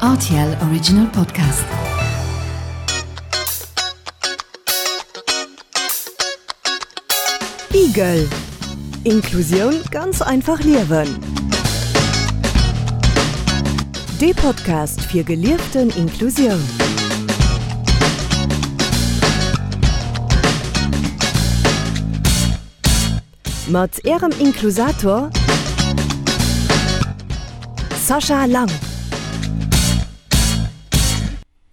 Rtl Original Podcast. Igel, Inklusioun ganz einfach liewen. Dee Podcast fir gelieften Inklusioun. Mat Ärem Inklusator Sascha Lang.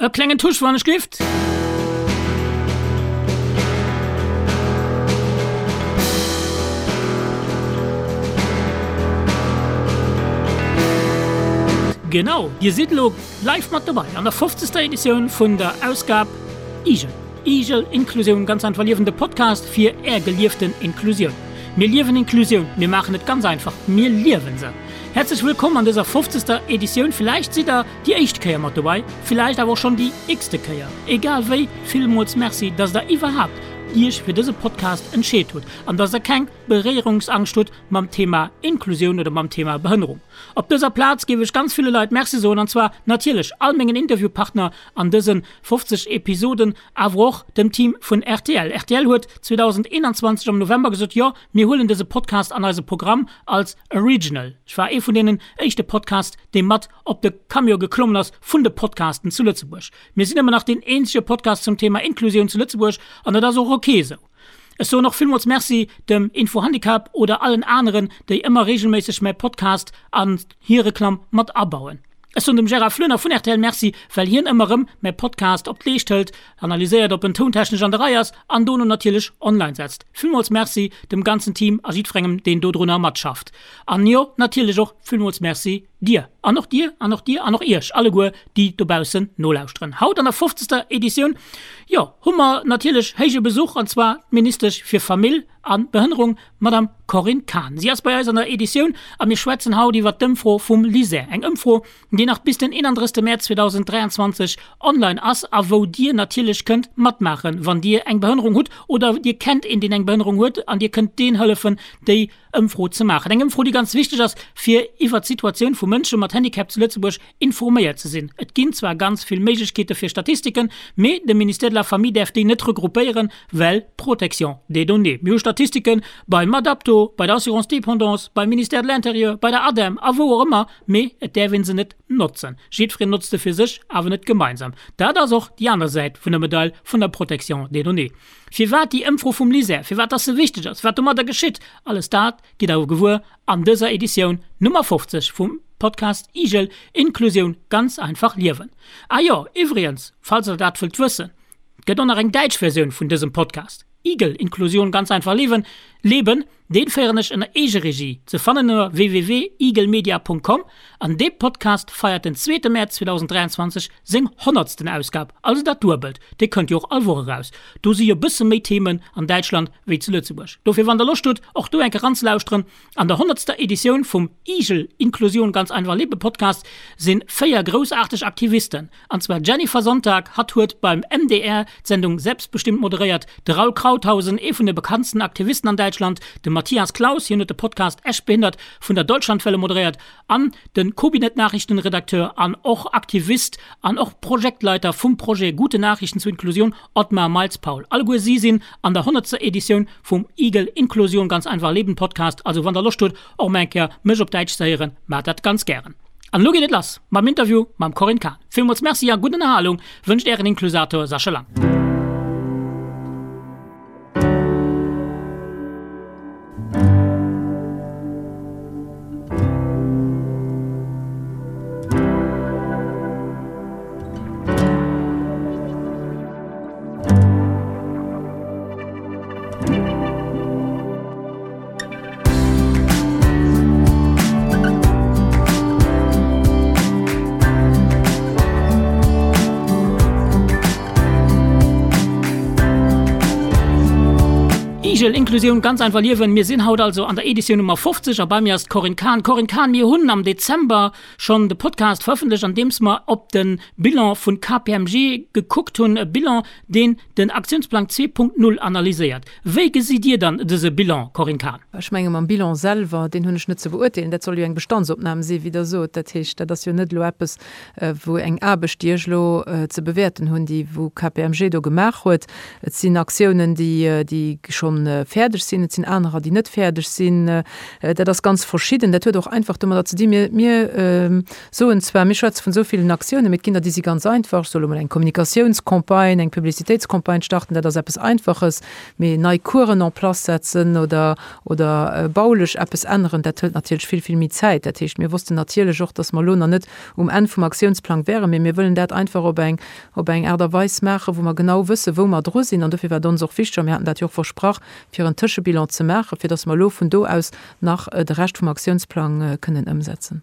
E klengen Tusch wann ech gift. Genau, dir sidd elo live mat dobei an der 50. Editioun vun der Ausgab Igel. Igel, Inklusioun ganz einfach liewen, de Podcast fir är gelieften Inklusioun. Mir liewen Inklusioun, mir maachen et ganz einfach, mir liewen se. Häerzlech wëllkomm an dëser 50. Editioun. Villäicht sidd der déi éischt Kéier mat dobei, villäicht awer och schonn déi x-te Kéier. Egal wéi, villmools Merci, dass der iwwerhaapt iech fir dëse Podcast entscheet hutt an dass der keng Beréierungsangscht hutt mam Thema Inklusioun oder mam Thema Behënnerung. Op dëser Plaz géif ech ganz ville Leit Merci soen, an zwar natierlech all mengen Interviewpartner an dëse 50 Episoden, awer och dem Team vun rtl. Rtl huet 2021 am November gesot, jo, mir huelen dëse Podcast an eise Programm als Original. Ech war ee vun deenen éischte Podcast, dee mat op de Camion geklommen ass vun de Podcasten zu Lëtzebuerg. Mir sinn ëmmer nach deen eenzege Podcast zum Thema Inklusioun zu Lëtzebuerg an dat ass och ok esou. Ech soen och villmools Merci dem Infohandicap oder allen aneren, déi ëmmer reegelméisseg mäi Podcast an hir Reklamm mat abauen. Ech soen dem Gérard Floener vun rtl Merci, well hien ëmmer erëm mäi Podcast op d'Leescht hëlt, analyséiert ob en tountechnesch an der Rei ass an dono natierlech online setzt. Villmools Merci dem ganzen Team a jiddwerengem deen dodrunner matschafft. An jo, natierlech och villmools Merci dir an och dir an och dir an och iech alleguer déi dobaussen nolauschteren. Haut an der fofzegster Editioun, jo, hu mer natierlech héije Besuch an zwar d'Ministesch fir Famill a Behënnerung, d'Madame Corinne Cahen. Si ass bei eis an der Editioun a mir schwätzen haut iwwert d'Ëmfro vum LISER. Eng Ëmfro, déi nach bis den 31 Mäerz 2023 online ass a wou Dir natierlech kënnt matmaachen, wann Dir eng Behënnerung hutt oder Dir kennt een, deen eng Behënnerung huet an Dir kënnt deen hëllefen, déi Ëmfro ze maachen. Eng Ëmfro, déi ganz wichteg ass, fir iwwert d'Situatioun vu Mënsche mat Handicap zu Lëtzebuerg informéiert ze sinn. Et ginn zwar ganz vill Méiglechkeete fir Statistiken, mee de Ministère de la Famille däerf déi net regroupéieren, well Protection des données. Mir hu Statistike beim Adapto, bei der Assurance dépendance, beim Ministère de l'Intérieur, bei der ADEM a wou och ëmmer, mee et däerf ee se net notzen. Jiddwereen notzt se fir sech, awer net gemeinsam. Dat ass och déi aner Säit vun der Medail vun der Protection des données. Firwat déi Ëmfro vum LISER, firwat dass se wichteg ass, wat domadder geschitt, alles dat gitt der gewuer an dëser Editioun Nummer 50 vum Podcast Igel, Inklusioun ganz einfach liewen. Ah jo, iwwregens, falls der dat wëllt wëssen, et gëtt och nach eng däitsch Versioun vun dësem Podcast, Igel, Inklusion ganz einfach leben, leben, Deen féieren ech ënner Eegeregie, ze fannen ënner www.igelmedia.com, an dee Podcast feiert den zweete Mäerz 2023 seng honnertsten Ausgab, also dat Duebelt. Dee kënnt jo och all Woch eraus. Do si jo bësse méi Themen an Däitschland wéi zu Lëtzebuerg. Dofir wann der Loscht hutt och do enke ranzelauschteren, an der honnertster Editioun vum Igel Inklusion ganz einfach leben Podcast sinn 4 groussaarteg Aktivisten, An zwar d'Jennifer Sonntag, hatt huet beim MDR d'Sendung Selbstbestimmt moderéiert, de Raul Krauthausen, ee vun de bekanntsten Aktivisten an Däitschland, de Matthias Claus, hien huet de Podcast Echt behindert vun der Deutschlandwelle moderéiert, an de Kobinet-Nachrichten-Redakteur an och Aktivist an och Projektleiter vum Projet Gute Nachrichten zur Inklusion, Otmar Miles-Paul. Alleguer si sinn an der honnertster Editioun vum Igel Inklusion ganz einfach leben Podcast. Also wann der Loscht hutt och mol eng Kéier mech op Däitsch ze héieren, maacht dat ganz gären. An elo geet et lass mam Interview mam Corinne Cahen. Villmools Merci a gutt Ënnerhalung wënscht Ären Inklusator Sascha Lang. Igel, Inklusioun ganz einfach liewen. Mir sinn haut also an der Editioun Nummer 50 a bei mir ass d'Corinne Cahen. Corinne Cahen, mir hunn am Dezember schonn de Podcast verëffentlecht, an deems mer op de Bilan vun KPMG gekuckt hunn, e Bilan, deen den Aktiounsplang 2.0 analyséiert. Wéi gesitt Dir dann dëse Bilan, Corinne Cahen? Ech menge mam Bilan selwer, deen hunn ech net ze beurteelen. Dat soll jo eng Bestandsopnam sinn, wéi Der sot. Dat heescht, dat ass jo net elo eppes, wou eng Aarbecht, déi ech elo ze bewäerten hunn, déi wou KPMG do gemaach huet. Et sinn Aktiounen, déi déi scho fäerdeg sinn, et sinn anerer, déi net fäerdeg sinn. Dat ass ganz verschidden. Dat huet och einfach domadder ze dinn, mir mir soen zwar, mir schwätze vun esou villen Aktiounen, mee et ginn der, déi si ganz einfach. Ech soe lo mol eng Kommunikatiounscampagne, eng Publicitéitscampagne starten, dat ass eppes Einfaches. Mee nei Coursen en place setzen oder oder baulech eppes änneren, dat hëlt natierlech vill, vill méi Zäit. Dat heescht, mir wossten natierlech och, dass mer elo nach net um Enn vum Aktiounsplang wären, mee mir wëllen dat einfach op eng, op eng Aart a Weis maachen, wou mer genau wëssen, wou mer dru sinn. An dofir war et ons och wichteg, a mir haten dat jo och versprach, fir en Tëschebilan ze maachen, fir dass mer elo vun do aus nach de Rescht vum Aktiounsplang kënnen ëmsetzen.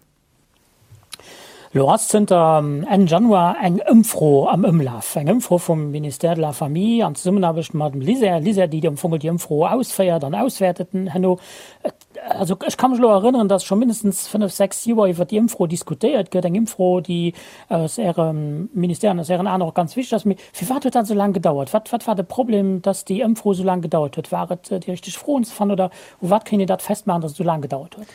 Elo ass zënter Enn Januar eng Ëmfro am Ëmlaf, eng Ëmfro vum Ministère de la Famille an Zesummenaarbecht mam LISER, LISER, déi am Fong déi Ëmfro ausféiert an auswäertet herno. Also ech ka mech elo erënneren, dass scho mindestens fënnef, sechs Joer iwwert déi Ëmfro diskutéiert gëtt, eng Ëmfro, déi aus Ärem Ministère an aus Ären Aen och ganz wichteg ass. Mee firwat huet dat esou laang gedauert? Wat, wat war de Problem, dass déi Ëmfro esou laang gedauert huet? War et déi richteg Froen ze fannen oder u wat kéint een dat festmaachen, dass et esou laang gedauert huet?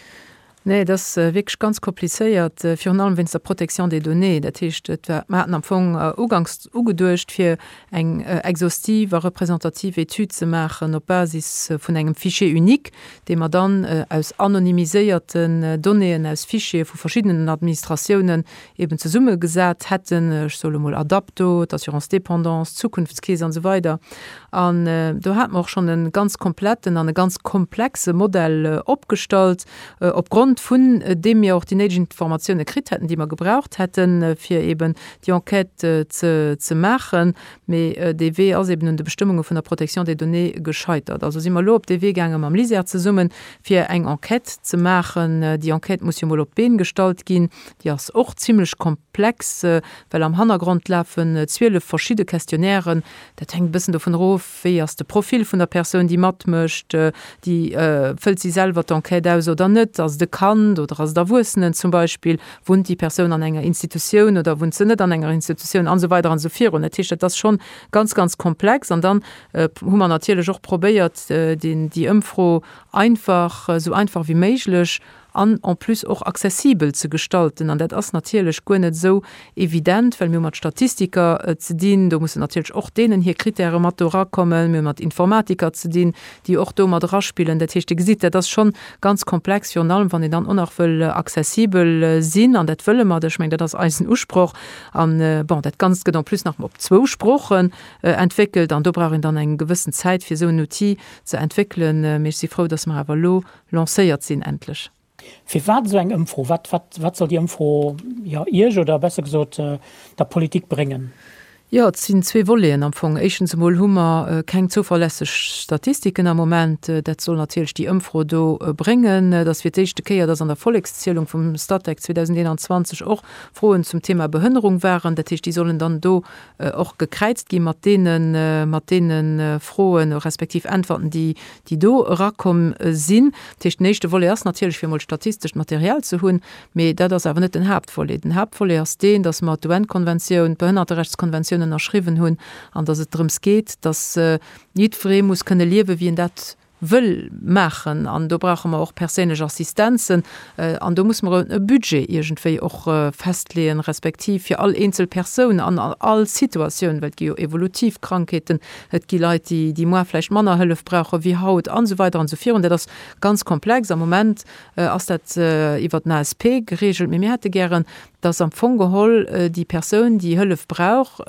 Nee, et ass wierklech ganz komplizéiert, virun allem wéinst der Protection des données. Dat heescht, et war, mer haten am Fong uganks ugeduecht, fir eng exhaustive a représentative Etüd ze maachen op Basis vun engem Fichier unique, dee mer dann aus anonymiséierten Donnéeën aus Fichiere vu verschiddenen Administratiounen eben zesummegesat hätten, ech soe lo mol Adapto, d'Assurance dépendance, d'Zukunftskeess an esou weider. An do hate mer och schonn e ganz kompletten an e ganz komplexe Modell opgestallt, opgrond vun deem mir och déi néideg Informatioune kritt hätten, déi mer gebraucht hätten, fir eben déi Enquête ze ze maachen. Mee dee Wee ass eben un de Bestëmmunge vun der Protection des données gescheitert. Also si mer elo op dee Wee gaange mam LISER zesummen, fir eng Enquête ze maachen. Déi Enquête muss jo mol op d'Been gestallt ginn. Déi ass och zimlech komplex, well am Hannergrond lafen 12 verschidde Questionnairen. Dat hänkt e bëssen dovun erof, wéi ass de Profil vun der Persoun, déi matmécht, déi fëllt si selwer d'Enquête aus oder net, ass et e Kand oder ass et Erwuessenen zum Beispill, wunnt déi Persoun an enger Institutioun oder wunnt se net an enger Institutioun an esou weider an esou virun. Dat heescht, dat ass schonn ganz, ganz komplex. An dann hu mer natierlech och probéiert, déi Ëmfro einfach, esou einfach wéi méiglech an en plus och accessibel ze gestalten. An dat ass natierlech guer net esou evident, well mir hu mat Statistiker ze dinn, do mussen natierlech och deenen hir Kritäre mat do erakommen. Mir hu mat Informatiker ze dinn, déi och do mat eraspillen. Dat heescht, Dir gesitt, dat ass schonn ganz komplex, virun allem wann een dann och nach wëll accessibel sinn. An dat wëlle mer, ech mengen, dat ass eisen Usproch. An, bon, dat Ganzt gëtt en plus nach op zwou Sproochen entwéckelt an do brauch een dann eng gewëssen Zäit, fir esou en Outil ze entwéckelen. Mee ech si frou, dass mer awer elo lancéiert sinn endlech. Firwat esou eng Ëmfro? Wat, wat, wat soll déi Ëmfro, jo, Iech oder besser gesot der Politik bréngen? Jo, et sinn zwee Voleten am Fong. Éischtens emol hu mer keng zouverlässeg Statistiken am Moment. Dat soll natierlech déi Ëmfro do bréngen. Et ass fir d'éischte Kéier, dass an der Vollekszielung vum Statec 2021 och Froen zum Thema Behënnerung waren. Dat heescht, déi sollen dann do och gekräizt gi mat deene, mat deene Froen respektiv Äntwerten, déi, déi do erakomm sinn. Dat heescht, den éischte Volet ass natierlech, fir emol statistescht Material ze hunn, mee dat ass awer net den Haaptvolet. Den Haaptvolet ass deen, dass mer d'UN-Konventioun, d'Behënnerterechtskonventioun ënnerschriwwen hunn an dass et drëms geet, dass jiddweree muss kënne liewen, wéi en dat wëll maachen. An do brauche mer och perséinlech Assistenzen an do muss mer e Budget iergendwéi och festleeën, respektiv fir all eenzel Persoun an all Situatioun, well et gi jo evolutiv Krankheeten, Et gi Leit, déi, déi muar vläicht manner Hëllef brauche wéi haut an esou weider an esou virun. Dat ass ganz komplex. Am Moment ass dat iwwert den ASP geregelt, mee mir hätte gären, dass am Fong geholl déi Persoun, déi Hëllef brauch,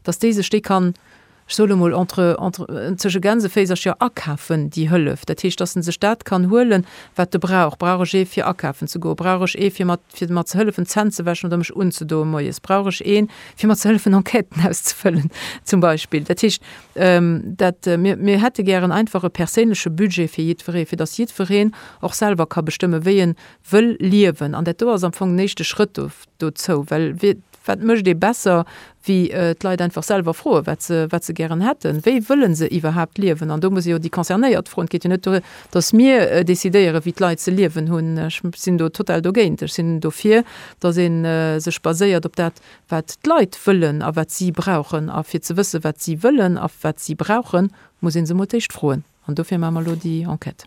dass déi sech déi kann, ech soe lo mol entre, entre, zwësche Gänseféisercher akafen, déi Hëllef. Dat heescht, dass en sech dat kann huelen, wat e brauch. Brauch ech ee fir akafen ze goen? Brauch ech ee fir mat, fir mer ze hëllefen d'Zänn ze wäschen oder mech unzedoen moies? Brauch ech een, fir mer ze hëllefen Enquêten auszefëllen zum Beispill? Dat heescht, dat, mir, mir hätte gären einfach e perséinleche Budget fir jiddweree, fir datt jiddwereen och selwer ka bestëmmen, wéi en wëll liewen. An dat do ass am Fong den éischte Schrëtt do. dozou, well wat mécht ee besser, wéi d'Leit einfach selwer froen, wat se, wat se gären hätten, wéi wëlle se iwwerhaapt liewen. An do muss ee jo déi Concernéiert froen. Et geet jo net duer, datt mir decidéieren, wéi d'Leit ze liewen hunn. Ech sinn do total dogéint. Ech sinn dofir, datt ee sech baséiert op dat, wat d'Leit wëllen a wat si brauchen. A fir ze wëssen, wat si wëllen a wat si brauchen, muss ee se emol d'éischt froen. An dofir maache mer elo déi Enquête.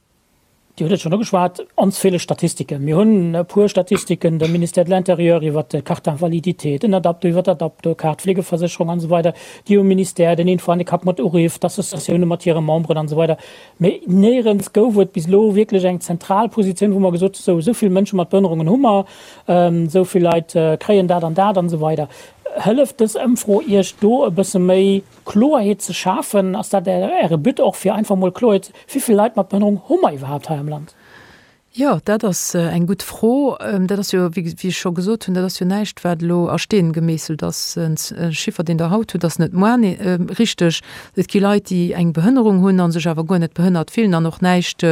Dir hutt et schonn ugeschwat, ons feele Statistiken. Mir hunn e puer Statistiken, de Ministère de l'Intérieur iwwert d'Carte d'invalidité, den Adapto iwwert d'Adapto-Kaart, d'Fleegeversécherung an esou weider, déi um Ministère, den Infohandicap mat uriff, d'Associatioune mat hire Memberen an esou weider. Mee néierens gouf et bis elo wierklech eng zentral Positioun, wou mer gesot hunn, sou, esou vill Mënsche mat Behënnerungen hu mer, esou vill Leit kréien dat an dat an esou weider. Hëlleft dës Ëmfro Iech do e bësse méi Kloerheet ze schafen? Ass dat Äre But och, fir einfach mol Kloerheet, wéi vill Leit mat Behënnerung hu mer iwwerhaapt hei am Land? Jo, dat ass eng gutt Fro. Dat ass jo, wéi ech scho gesot hunn, dat ass jo näischt, wat elo a Steen gemeesselt ass. E Chiffer, deen Der haut hutt, ass net moar richteg. Et gi Leit, déi eng Behënnerung hunn a sech awer guer net behënnert fillen an och näischt,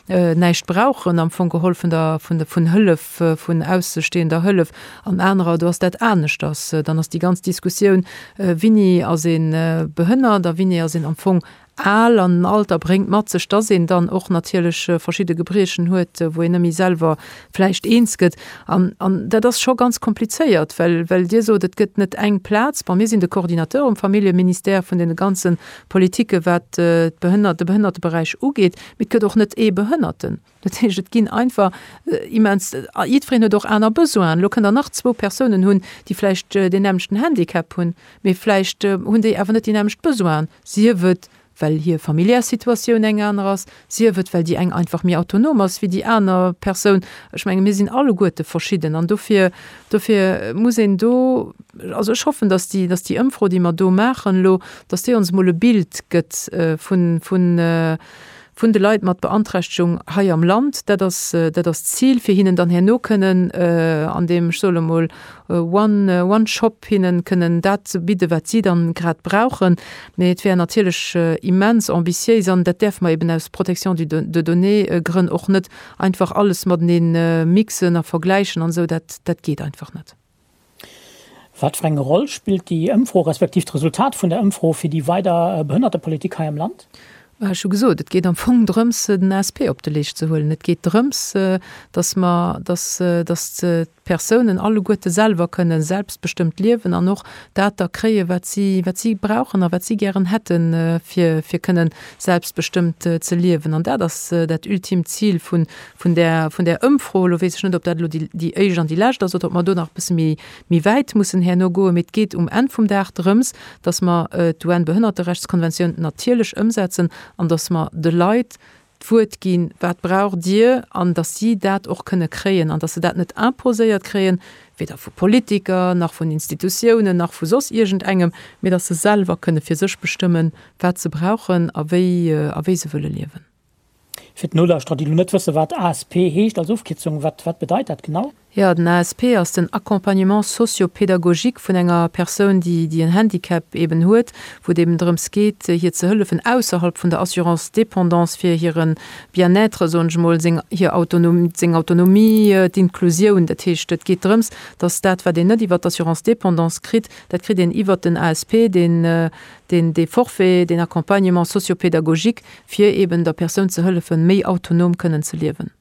näischt brauchen am Fong geholl vun der, vun, vun Hëllef, vun aussestehender Hëllef, an anerer, do ass dat aneschters. Dann ass déi ganz Diskussioun, Wini ass ee behënnert a wini ass een am Fong al, an den Alter bréngt mat sech, dass een dann och natierlech verschidde Gebriechen huet, wou een net méi selwer vläicht eens gëtt. An, an dat ass scho ganz komplizéiert, well, well Dir sot, et gëtt net eng Plaz. Bon, mir sinn de Coordinateur um Familljeministère vun deene ganze Politike wat d'Behënner, de Behënnerteberäich ugeet. Mee et gëtt och net ee Behënnerten. Dat heescht, et ginn einfach immens, jiddwereen huet och aner Besoinen. Elo kënnt Der nach zwou Persounen hunn, déi vläicht deen nämmlechten Handicap hunn, mee vläicht hunn déi awer net déi nämmlecht Besoinen, sief et, well hir familiär Situatioun eng aner ass, sief et, well déi eng einfach méi autonom ass wéi déi aner Persoun. Ech menge mir sinn alleguerte verschidden an dofir, dofir muss een do, also ech hoffen, datt déi, datt déi Ëmfro, déi mer do maachen elo, datt déi ons emol e Bild gëtt vun, vun, vun de Leit mat Beanträchtegung hei am Land. Dat ass, dat ass d'Zil, fir hinnen dann herno kënnen an deem, ech soe lo mol, one, one shop hinnen kënnen dat ze bidden, wat si dann grad brauchen. Mee et wär natierlech immens ambitiéis, an dat däerfe mer eben aus Protection du de données Grënn och net einfach alles matenee mixen a vergläichen an esou, dat, dat geet einfach net. Wat fir eng Roll spillt déi Ëmfro, respektiv d'Resultat vun der Ëmfro fir déi weider Behënnertepolitik hei am Land? Ech hu gesot, et geet am Fong drëms, den ASP op de Leescht ze huelen. Et geet drëms, datt mer, datt, datt d'Persounen alleguerte selwer kënne selbstbestëmmt liewen an och dat da kréien, wat si, wat si brauchen a wat si gären hätten, fir, fir kënnen selbstbestëmmt ze liewen. An dat ass dat ultimt Zil vun, vun där, vun där Ëmfro. Elo weess ech net, ob dat elo déi, déi éischt an déi lescht ass oder ob mer do nach e bësse méi, méi wäit mussen herno goen. Mee et geet um Enn vum Dag drëms, dass mer d'UN-Behënnerterechtskonventioun natierlech ëmsetzen an dass mer de Leit d'Wuert ginn, Wat braucht Dir? an dass si dat och kënne kréien an dass se dat net imposéiert kréien, weder vu Politiker nach vun Institutiounen nach vu soss iergendengem, mee dass se selwer kënne fir sech bestëmmen, wat se brauchen a wéi, a wéi se wëlle liewen. Fir d'Nolauschterer, déi elo net wëssen, wat ASP heescht als Ofkierzung, wat, wat bedeit dat genau? Jo, den ASP ass den Accompagnement socio-pédagogique vun enger Persoun, déi, déi en Handicap eben huet, wou et eben drëms geet, hir ze hëllefen ausserhalb vun der Assurance dépendance fir hire Bien-être, soen ech emol, seng, hir Autonom, seng Autonomie, d'Inklusioun. Dat heescht, et geet drëms, dass dat, wat een net iwwert d'Assurance dépendance kritt, dat kritt een iwwert den ASP, deen, deen, dee Forfait, deen Accompagnement socio-pédagogique, fir eben der Persoun ze hëllefen, méi autonom kënnen ze liewen.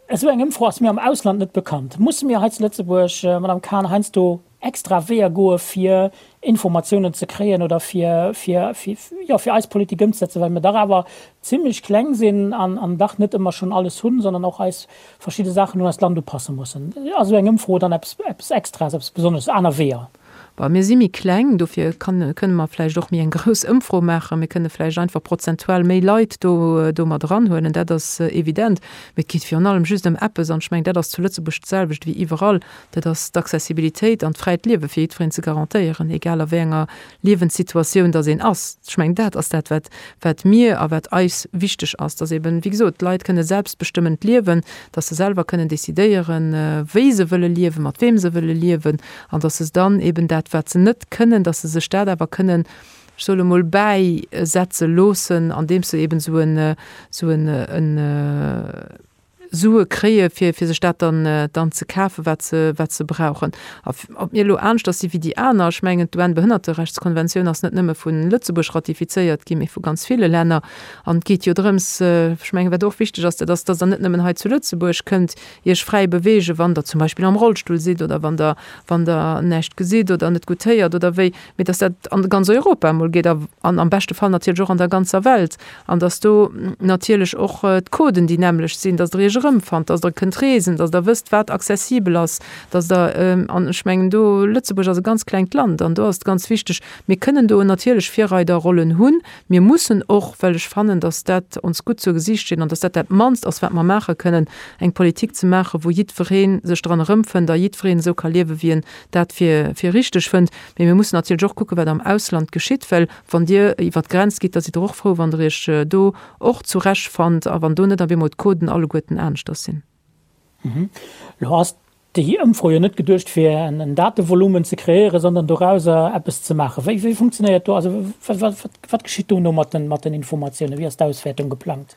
Esou eng Ëmfro ass mir am Ausland net bekannt. Musse mir hei zu Lëtzebuerg, Madame Cahen, heiansdo extra Weeër goe fir Informatiounen ze kréien oder fir, fir, jo, fir eis Politik ëmzesetzen, well mir dach awer zimlech kleng sinn an, an dach net ëmmer schonn alles hunn, sondern och eis verschidde Saachen un eist Land upasse mussen? Ass esou eng Ëmfro dann eppes, eppes Extraes, eppes Besonnesches, aner Weeër? Bon, mir si méi kleng, dofir kann, kënne mer vläicht och méi eng grouss Ëmfro maachen. Mir kënne vläicht einfach prozentual méi Leit do, do mat eranhuelen, dat ass evident. Mee et geet virun allem just ëm eppes, an ech mengen, dat ass zu Lëtzebuerg d'selwecht wéi iwwerall, dat ass d'Accessibilitéit an d'fräit Liewe fir jiddwereen ze garantéieren, egal a wéi enger Liewenssituatioun dass een ass. Ech mengen, dat ass dat, wat, wat mir a wat eis wichteg ass, dass eben, wéi gesot, d'Leit kënne selbstbestëmmend liewen, dass se selwer kënnen decidéieren, wéi se wëlle liewen, mat weem se wëlle liewen, an dass se dann eben dat, wat se net kënnen, dass se sech dat awer kënnen, ech soe mol, bäisetze loossen, andeems se eben esou en, esou en, en. Sue kréie fir fir sech dat dann dann ze kafen, wat se wat se brauchen. A ob mir elo aneschters si wéi déi aner, ech mengen d'UN-Behënnerterechtskonventioun ass net nëmme vu Lëtzebuerg ratifizéiert ginn, mee vu ganz ville Länner. An et geet jo drëms, ech mengen wat och wichteg ass, dat ass, datt Der net nëmmen hei zu Lëtzebuerg kënnt Iech fräi beweegen, wann Der zum Beispill am Rollstull sidd oder wann Der wann Der näischt gesitt oder net gutt héiert oder wéi, mee dass dat an ganz Europa emol geet a an am beschte Fall natierlech och an der ganzer Welt an dass do natierlech och d'Coden déi nämmlecht sinn, dass Der Iech erëmfannt, dass Der kënnt reesen, dass Der wësst, wat accessibel ass, dass Der, an ech mengen do, Lëtzebuerg ass e ganz klengt Land an do ass et ganz wichteg, mir kënnen do natierlech Virreiderrollen hunn, mir mussen och, well ech fannen, dass dat ons gutt zur Gesicht steet an dass dat dat mannst ass, wat mer maache kënnen, eng Politik ze maachen, wou jiddweree sech dran erëmfënnt a jiddwereen esou ka liewen, wéi en dat fir fir richteg fënnt. Mee mir mussen natierlech och kucken, wat am Ausland geschitt, well wann Dir iwwert d'Grenz gitt, da sidd Der och frou, wann Der Iech do och zurechtfannt a wann do net op eemol d'Coden alleguerten aneschters sinn. Elo ass déi Ëmfro jo net geduecht, fir en Datevolumen ze kreéieren, sondern dorauser eppes ze maachen. Wéi wéi funktionéiert do, also wat geschitt dono mat den Informatiounen? Wéi ass d'Auswäertung geplangt?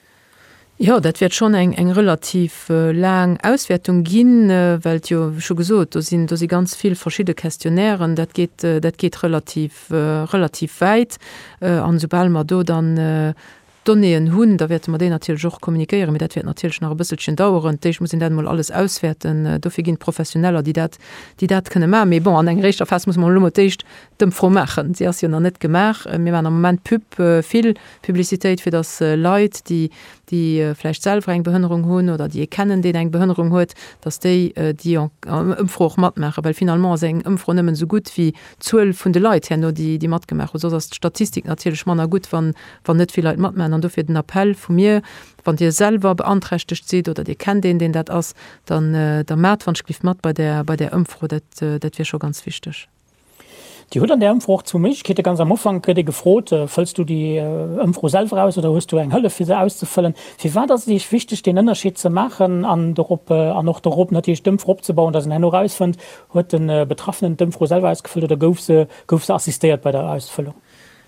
Jo, dat wäert schonn eng eng relativ laang Auswäertung ginn, well et jo, ech hu gesot, do sinn do si ganz vill verschidde Questionnairen, dat geet dat geet relativ relativ wäit. An esoubal mer do dann d'Donnéeën hunn, da wäerte mer déi natierlech och kommunikéieren, mee dat wäert natierlech nach e bësselchen daueren. D'éischt muss een dat emol alles auswäerten. Dofir ginn et Professioneller, déi dat déi dat kënne maachen. Mee bon, an enger éischter Phas muss mer elo mol d'éischt d'Ëmfro maachen. Si ass jo nach net gemaach. Mir maachen am Moment Pub, vill Publicitéit, fir datt Leit, déi, déi vläicht selwer eng Behënnerung hunn oder déi ee kennen, deen eng Behënnerung huet, datt déi déi Ëmfro och matmaachen. Well finalement ass eng Ëmfro nëmmen esou gutt wéi d'Zuel vun de Leit herno, déi, déi matgemaach hunn. Soss ass d'Statistik natierlech manner gutt, wann, wann net vill Leit matmaachen. An dofir den Appell vu mir, Wann Dir selwer beanträchtegt sidd oder Dir kennt een, deen dat ass, dann, da maacht wann ech gelift mat bei där, bei där Ëmfro. Dat, dat wier scho ganz wichteg. Dir hutt an där Ëmfro och zwou Méiglechkeeten. Ganz am Ufank gëtt ee gefrot, Fëlls du déi Ëmfro selwer aus oder hues du eng Hëllef fir se auszefëllen? Firwat ass et Iech wichteg deen Ënnerscheed ze maachen an dorop an och dorop natierlech d'Ëmfro opzebauen, datt een herno erausfënnt, huet de Betraffenen d'Ëmfro selwer ausgefëllt oder gouf se gouf se assistéiert bei der Ausfëllung?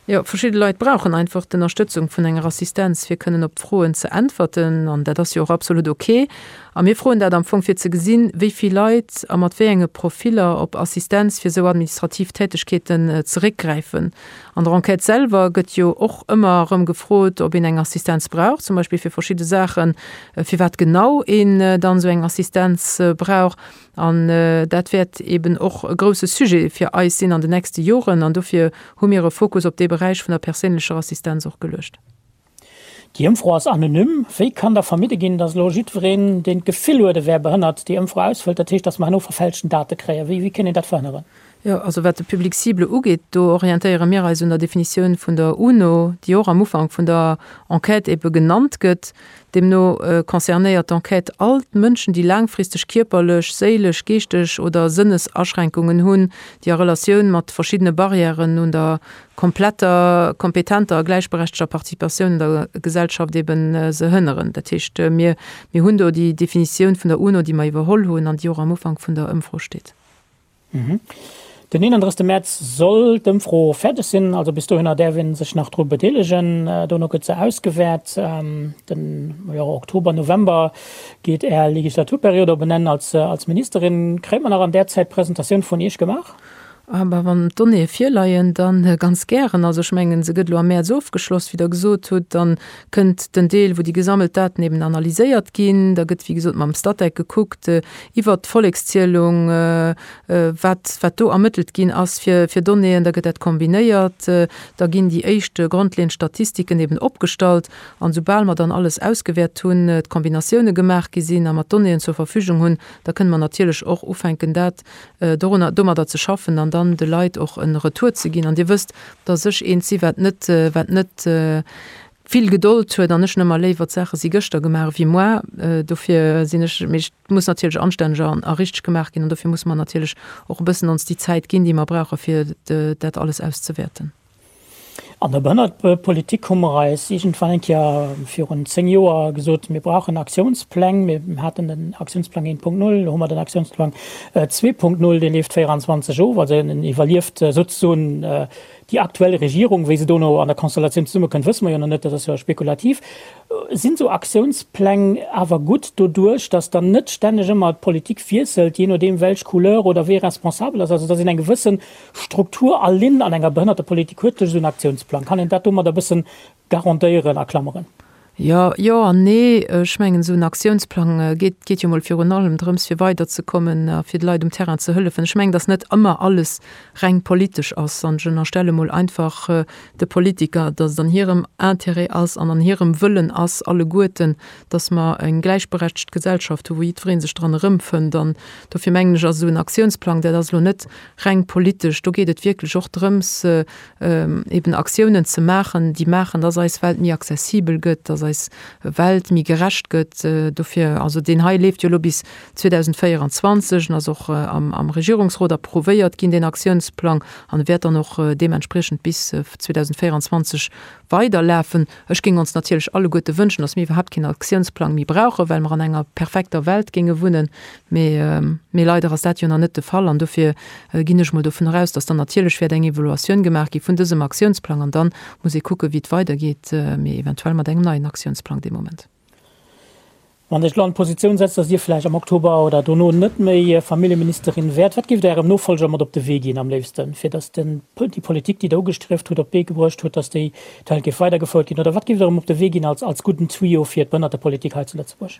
Jo, verschidde Leit brauchen einfach d'Ënnerstëtzung vun enger Assistenz, fir kënnen op d'Froen ze äntwerten, an dat ass jo och absolut ok. A mir froen dat am Fong, fir ze gesinn, wéi vill Leit a mat wéi enge Profiller op Assistenz fir esou administrativ Tätegkeeten zeréckgräifen. An der Enquête selwer gëtt jo och ëmmer erëm gefrot, ob een eng Assistenz brauch, zum Beispill fir verschidde Saachen, firwat genau een dann esou eng Assistenz brauch. An dat wäert eeben och e grouse Sujet fir eis sinn an den nächste Joren. An dofir hu mir e Fokus op dee Beräich vun der perséinlecher Assistenz och geluecht. Déi Ëmfro ass anonym. Wéi kann da vermidde ginn, datt elo jiddwereen, deen d'Gefill huet, e wär behënnert, déi Ëmfro ausfëllt? Dat heescht, datt mer herno verfälschten Date kréien. Wéi kéint een dat verhënneren? Jo, also wat de Public cible ugeet, do orientéiere mir eis un der Definitioun vun der UNO, déi och am Ufank vun der Enquête ebe genannt gëtt. Deemno concernéiert d'Enquête all d'Mënschen, déi laangfristeg kierperlech, séilesch, geeschteg oder Sënnesaschränkungen hunn, déi a Relatioun mat verschiddene Barrièren un der kompletter, kompetenter a gläichberechteger Participatioun un der Gesellschaft eben se hënneren. Dat heescht, mir hunn do déi Definitioun vun der UNO, déi mer iwwerholl hunn an déi och am Ufank vun der Ëmfro steet. Den 31 Mäerz soll d'Ëmfro fäerdeg sinn, also bis dohinner däerf ee sech nach dru bedeelegen. Dono gëtt se ausgewäert. Den Oktober, November geet Är Legislaturperiod op en Enn als Ministerin. Kréie mer nach an där Zäit d'Presentatioun vun Iech gemaach? Ah bah, wann d'Donnéeë virleien, da ganz gären. Also ech mengen, se gëtt elo am Mäerz ofgeschloss, wéi Der gesot hutt. Dann kënnt den Deel, wou déi gesammelt Daten eben analyséiert ginn. Da gëtt, wéi gesot, mam Statec gekuckt iwwert d'Vollekszielung, wat, wat do ermëttelt ginn ass fir, fir Donnéeën. Da gëtt dat kombinéiert. Da ginn déi éischt grondleeënd Statistiken eben opgestallt. An soubal mer dann alles ausgewäert hunn, d'Kombinatioune gemaach gi sinn a mer d'Donnéeën zur Verfügung hunn, da kënne mer natierlech och ufänken, dat dorunner, domadder ze schaffen an dann de Leit och e Retour ze ginn. An Dir wësst, dass ech eent si wat net, wat net vill Gedold huet an ech hunn ëmmer léiwer d'Saache si gëschter gemaach ewéi moar. Dofir sinn ech, mee et muss natierlech anstänneg an a richteg gemaach ginn an dofir musse mer natierlech och e bëssen ons déi Zäit ginn, déi mer brauche fir dat alles auszewäerten. An der Behënnertepolitik hu mer eis iergendwann eng Kéier virun 10 Joer gesot, mir brauchen Aktiounspläng. Mir haten den Aktiounsplang 1.0, elo hu mer den Aktiounsplang 2.0, dee leeft 24 of, also en iwwerlieft souzesoen. Déi aktuell Regierung, wéi se dono an der Konstellatioun zesummekënnt, wësse mer jo nach net, dat ass jo spekulativ. Sinn esou Aktiounspläng awer gutt doduerch, datt dann net stänneg ëmmer d'Politik wiesselt, jee nodeem welch Couleur oder wee responsabel ass, also datt een eng gewësse Struktur a Linn an enger Behënnertepolitik huet duerch esou en Aktiounsplang? Kann een dat domadder e bëssen garantéieren a Klammeren? Jo, jo an nee. Ech mengen, esou en Aktiounsplang geet, geet jo mol virun allem drëms, fir weiderzekommen a fir de Leit um Terrain ze hëllefen. Ech mengen, datt net ëmmer alles reng politesch ass. An ech ënnerstelle mol einfach de Politiker, datt et an hirem Intérêt ass an an hirem Wëllen ass, alleguerten, datt mer eng gläichberechtegt Gesellschaft hu wou jiddweree sech dran erëmfënnt. An dofir mengen ech, ass esou en Aktiounsplang, dat ass elo net reng politesch, do geet et wierklech och drëms, eben Aktiounen ze maachen, déi maachen, dass eis Welt méi accessibel gëtt, dass eis Welt méi gerecht gëtt. Dofir, also deen hei leeft jo elo bis 2024 en ass och am Regierungsrot approuvéiert ginn, deen Aktiounsplang, an e wäert dann och deementspriechend bis 2024 weiderlafen. Ech géing ons natierlech alleguerte wënschen, dass mir iwwerhaapt keen Aktiounsplang méi brauchen, well mer an enger perfekter Welt géinge wunnen. Mee, mee leider ass dat jo nach net de Fall. An dofir ginn ech mol dovun eraus, dass dann natierlech wäert eng Evaluatioun gemaach gi vun dësem Aktiounsplang. An dann muss ee kucken, wéi et weidergeet, mee eventuell mat engem neien Aktiounsplang dee Moment. Wann Dir Iech elo an d'Positioun setzt, dass Dir vläicht am Oktober oder dono net méi Familljeministerin wäert, wat géift Der Ärem Nofolger mat op de Wee ginn am léifsten, fir dass den, déi Politik, déi Der ugestrieft hutt, op d'Bee gebruecht hutt, dass déi d'Welt géif weidergefouert ginn? Oder wat géift Der em op de Wee ginn als, als gudden Tuyau fir d'Behënnertepolitik hei zu Lëtzebuerg?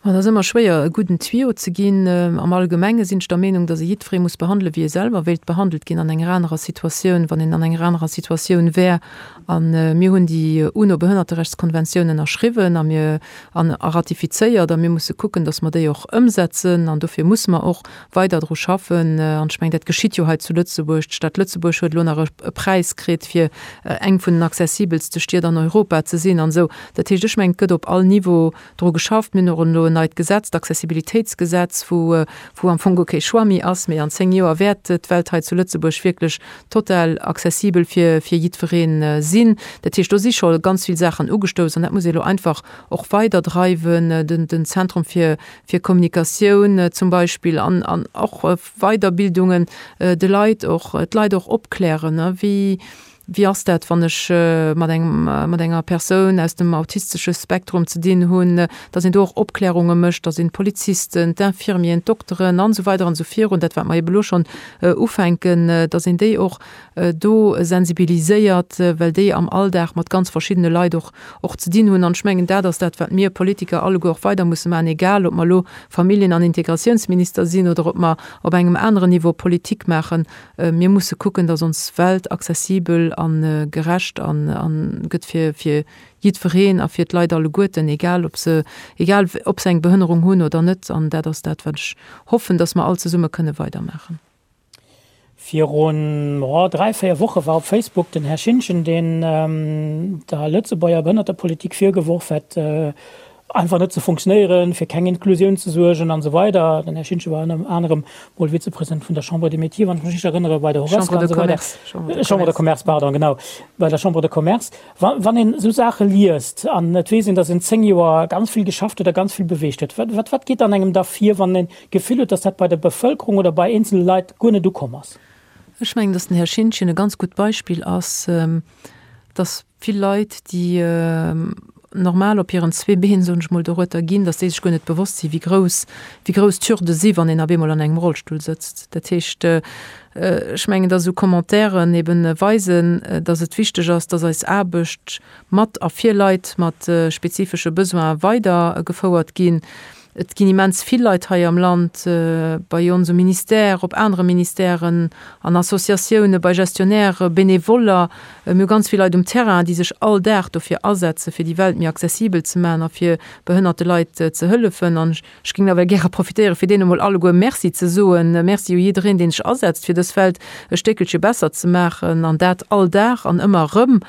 Et ass ëmmer schwéier, e gudden Tuyau ze ginn. Am Allgemenge sinn ech der Meenung, dass ee jiddweree muss behandelen, wéi ee selwer wéilt behandelt ginn an enger anerer Situatioun, wann een an enger anerer Situatioun wär. A mir hunn déi UNO-Behënnerterechtskonventioun ënnerschriwwen a mir an a ratifizéiert a mir musse kucken, dass mer déi och ëmsetzen. An dofir musse mer och weider dru schaffen. An ech mengen, dat geschitt jo hei zu Lëtzebuerg. D'Stad Lëtzebuerg huet elo nach e Präis kritt, fir eng vun den accessibelste Stied an Europa ze sinn an esou. Dat heescht, ech mengen, et gëtt op all Niveau dru geschafft. Mir hunn och elo en neit Gesetz, d'Accessibilitéitsgesetz, wou, wou am Fong guer kee Choix méi ass, mee an 10 Joer wäert d'Welt hei zu Lëtzebuerg wierklech total accessibel fir, fir jiddweree sinn. Dat heescht, do si scho ganz vill Saachen ugestouss an dat muss ee elo einfach och weiderdreiwen, den, den Zentrum fir, fir Kommunikatioun zum Beispill an, an och Weiderbildungen, de Leit och, d'Leit och opklären, wéi, Wéi ass dat, wann ech mat engem, mat enger Persoun aus dem autistesche Spektrum ze dinn hunn, dass een do och Opklärunge mécht, dass een d'Polizisten, d'Infirmieren, d'Dokteren an esou weider an esou virun, dat wat mer ebe lo schonn ufänken, dass een déi och do sensibiliséiert, well déi am Alldag mat ganz verschiddene Leit och, och ze dinn hunn. An ech mengen, dat ass dat, wat mir Politiker alleguer och weider musse maachen, egal ob mer elo Familljen an Integratiounsminister sinn oder ob mer op engem aneren Niveau Politik maachen. Mir musse kucken, datt ons Welt accessibel a gerecht a gëtt fir fir jiddwereen a fir d'Leit alleguerten, egal ob se egal ob se eng Behënnerung hunn oder net. An dat ass dat, wat ech hoffen, datt mer all zesumme kënne weidermaachen. Virun, oh, 3, 4 Woche war op Facebook den Här Schintgen, deen der Lëtzebuerger Behënnertepolitik virgeworf hätt, einfach net ze funktionéieren, fir keng Inklusioun ze suergen an esou weider. Den Här Schintgen war ënner anerem mol Vizepresident vun der Chambre des Métiers, wann ech mech richteg erënnere, bei der Horesca an esou weider. Chambre de Commerce, pardon, genau, bei der Chambre de Commerce. Wa wann een esou Saache liest an et weess een, datt een 10 Joer ganz vill geschafft huet a ganz vill beweegt huet, wat wat wat geet an engem da vir, wann een d'Gefill huet, datt dat bei der Bevëlkerung oder bei eenzele Leit guer net ukomm ass? Ech mengen, datt den Här Schintgen e ganz gutt Beispill ass, datt vill Leit, déi normal op hiren zwee Been, soen ech mol, dorueter ginn, datt déi sech guer net bewosst sinn, wéi grouss, wéi grouss d'Hürde si wann een op eemol an engem Rollstull sëtzt. Dat heescht, ech mengen, datt esou Commentairen eben weisen, datt et wichteg ass, datt eis Aarbecht mat a fir Leit mat spezifesche Besoine weidergefouert ginn. Et ginn immens vill Leit hei am Land, bei ons um Ministère, op anere Ministèren, an Associatioune, bei Gestionnaires, Benevoller. Mir hu ganz vill Leit um Terrain, déi sech all Dag dofir asetzen, fir déi Welt méi accessibel ze maachen a fir behënnerte Leit ze hëllefen. An ech géing nawell gäre profitéieren, fir deene mol alleguer Merci ze soen. Merci u jiddereen, deen sech asetzt, fir dës Welt e Stéckelche besser ze maachen, an dat all Dag an ëmmer erëm.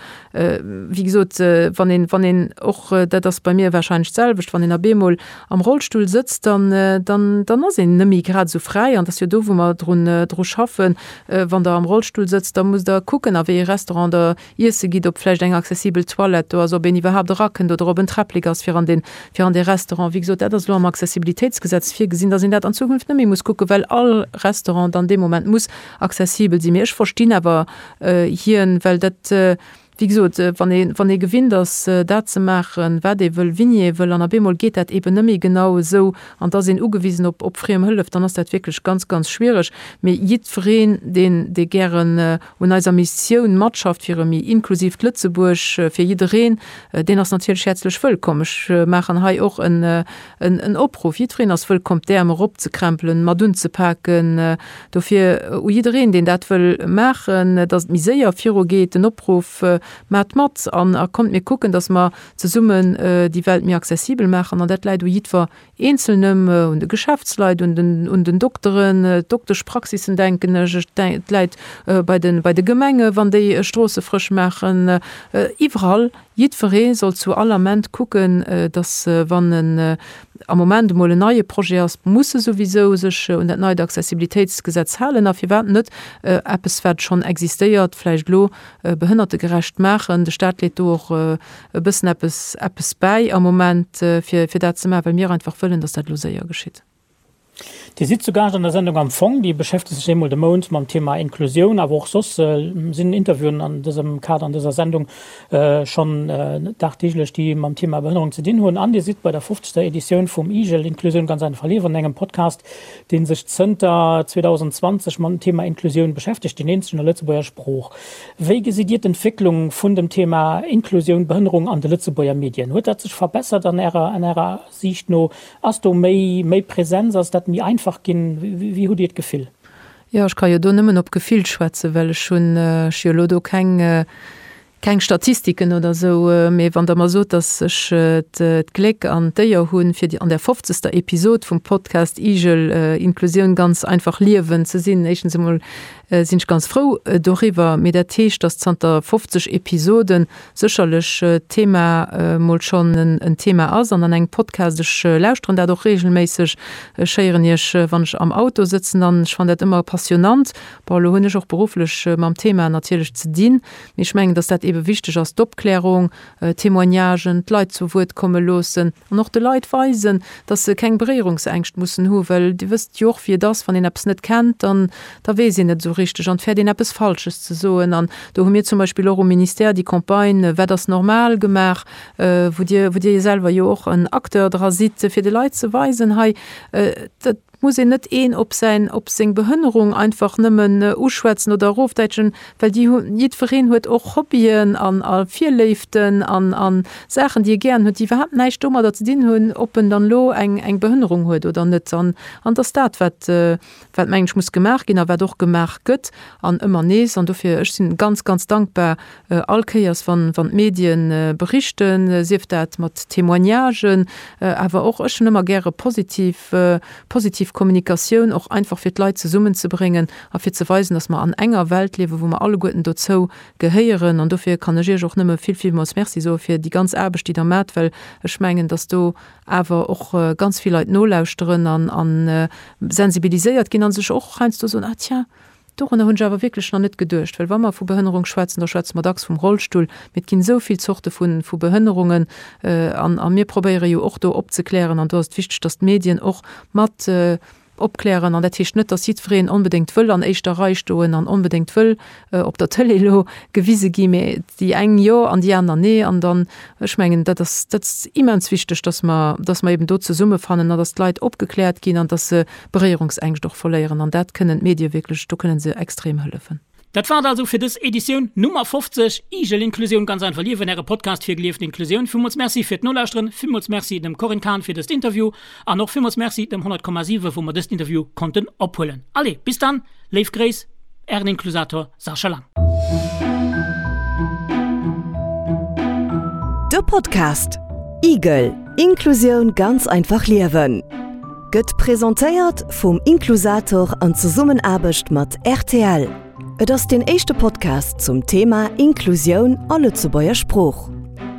Wéi gesot, wann een, wann een och, dat ass bei mir warscheinlech d'selwecht, wann een op eemol am Rollstull. Rollstull sëtzt, dann, dann, dann ass een net méi grad esou fräi. An et ass jo do, wou mer drun, dru schaffen. Wann Der am Rollstull sëtzt, da musst Der kucken, a wéi ee Restaurant Der iesse gitt, ob vläicht eng accessibel Toilette do ass, ob een iwwerhaapt erakënnt oder ob en Träpplek ass fir an deen, fir an dee Restaurant. Wéi gesot, dat ass elo am Accessibilitéitsgesetz virgesinn, dass een dat an Zukunft net méi muss kucken, well all Restaurant dann dee Moment muss accessibel sinn. Mee ech verstinn awer hien, well dat, wéi gesot, wann ee, wann ee gewinnt ass, dat ze maachen, wat ee wëll, wéini ee wëll, an op eemol geet dat eeben net méi genau esou an da ass een ugewisen op, op friem Hëllef, dann ass dat wierklech ganz, ganz schwiereg. Mee jiddwereen, deen, dee gären un eiser Missioun matschafft fir e méi inklusiivt Lëtzebuerg fir jiddereen, deen ass natierlech häerzlech wëllkomm. Ech maachen hei och en, en Opruff, Jiddwereen ass wëllkomm, d'Äerm eropzekrempelen, mat unzepaken. Dofir u jiddereen, deen dat wëll maachen, dass et méi séier virugeet, den Opruff, Maacht mat an a kommt mir kucken, dass mer zesummen déi Welt méi accessibel maachen. An dat läit u jiddwer Eenzelnem, un de Geschäftsleit, un den, un den Dokteren, d'Dokteschpraxissen denken ech, et läit bei de, bei de Gemenge wann déi Stroosse frësch maachen, iwwerall. Jiddweree soll zu all Ament kucken, datt wann en am Moment emol en neie Projet ass, muss e souwisou sech un dat neit Accessibilitéitsgesetz halen a firwat net eppes wat schonn existéiert vläicht elo behënnertegerecht maachen. De Staat leet do och e bëssen eppes eppes bäi am Moment fir fir dat ze maachen, well mir einfach wëllen, datt dat elo séier geschitt. Dir sidd zu Gaascht an der Sendung Am Fong. Déi beschäftegt sech eemol de Mount mam Thema Inklusioun, awer och soss sinn Interviewen an dësem Kader an dëser Sendung schonn dagdeeglech, déi mam Thema Behënnerung ze dinn hunn. An Dir sidd bei der fofzegster Editioun vum IGEL, Inklusioun ganz einfach liewen, engem Podcast, dee sech zënter 2020 mam Thema Inklusioun beschäftegt, deen eenzegen a Lëtzebuerger Sprooch. Wéi gesitt Dir d'Entwécklung vun dem Thema Inklusioun, Behënnerung an de Lëtzebuerger Medien? Huet dat sech verbessert an Ärer, an Ärer Siicht no? Ass do méi, méi Präsenz? Ass dat méi einfach ginn? Wéi hutt Dir d'Gefill? Jo, ech ka jo do nëmmen op Gefill schwätzen, well ech hunn, ech jo elo do keng, keng Statistiken oder esou. Mee wann Der mer sot, datt ech d'Gléck an d'Éier hunn, fir an der fofzegster Episod vum Podcast Igel, Inklusioun ganz einfach liewen ze sinn, éischtens emol sinn ech ganz frou doriwwer. Mee dat heescht, datt zanter 50 Episoden sécherlech d'Thema mol schonn en Thema ass an an engem Podcast, ech lauschteren dat och reegelméisseg, ech héieren iech wann ech am Auto sëtzen an ech fannen dat ëmmer passionnant. Bon, elo hunn ech och berufflech mam Thema natierlech ze dinn, mee ech mengen, datt dat eebe wichteg ass, d'Opklärung, Témoignagen, d'Leit zu Wuert komme loossen an och de Leit weisen, dass se keng Beréierungsängscht mussen hu, well Dir wësst jo och, wéi et ass, wann een eppes net kennt, dann da weess een net esou richteg an et fäert een eppes Falsches ze soen. An do hu mir zum Beispill och um Ministère déi Campagne Wat ass normal gemaach, wou Dir, wou Dir selwer jo och en Acteur dra sidd, fir de Leit ze weisen, hei, dat muss een net een op säin, op seng Behënnerung einfach nëmmen uschwätzen oder erofdäitschen, well déi hu, jiddwereen huet och Hobbyen an a Virléiften an a Saachen, déi e gären huet, déi iwwerhaapt näischt domadder ze dinn hunn, ob en dann elo eng eng Behënnerung huet oder net. An an et ass dat, wat wat mengen ech muss gemaach ginn a wat och gemaach gëtt an ëmmer nees. An dofir, ech sinn ganz, ganz dankbar all Kéiers, wann wann d'Medien berichten, sief dat mat Témoignagen, awer och, ech hunn ëmmer gäre positiv positiv Kommunikatioun, och einfach fir d'Leit zesummenzebréngen a fir ze weisen, dass mer an enger Welt liewen, wou mer alleguerten dozou gehéieren. An dofir kann ech Iech och nëmme vill, villmools Merci soe fir déi ganz Aarbecht, déi Der maacht, well ech mengen, dass do awer och ganz vill Leit nolauschteren an a sensibiliséiert ginn a sech och heiansdo soen, Ah tiens, dorunner hunn ech awer wierklech nach net geduecht. Well wa mer vu Behënnerung schwätzen, da schwätze mer dacks vum Rollstull, mee et ginn esou vill Zorte vu vu Behënnerungen an a mir probéiere jo och do opzeklären an do ass et wichteg, dass d'Medien och mat opklären. An dat heescht net, dass jiddwereen onbedéngt wëll an éischter Rei stoen an onbedéngt wëll op der Tëlee elo gewise gi, mee déi eng jo an déi aner nee. An dann, ech mengen, dat ass, dat ass immens wichteg, dass mer, dass mer eben do zesummefannen an dass d'Leit opgekläert ginn an dass se Beréierungsängscht och verléieren. An dat kënnen d'Medie wierklech, do kënnen se extrem hëllefen. Dat war et also fir dës Editioun Nummer 50, Igel Inklusioun ganz einfach liewen, äre Podcast fir gelieften Inklusioun. Villmools Merci fir d'Nolauschteren, villmools Merci dem Corinne Cahen fir dëst Interview an och villmools Merci dem 100,7 wou mer dëst Interview konnten ophuelen. Allez, bis dann, léif Gréiss, ären Inklusator Sascha Lang. De Podcast Igel, Inklusioun ganz einfach liewen gëtt presentéiert vum Inklusator an Zesummenaarbecht mat rtl. Et ass deen éischte Podcast zum Thema Inklusioun a Lëtzebuerger Sprooch.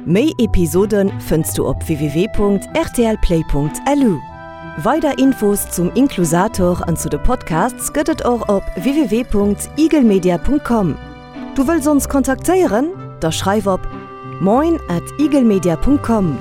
Méi Episode fënns du op www.rtlplay.lu. Weider Infos zum Inklusator an zu de Podcasts gëtt et och op www.igelmedia.com. Du wëlls ons kontaktéieren? Da schreif op moin at igelmedia.com.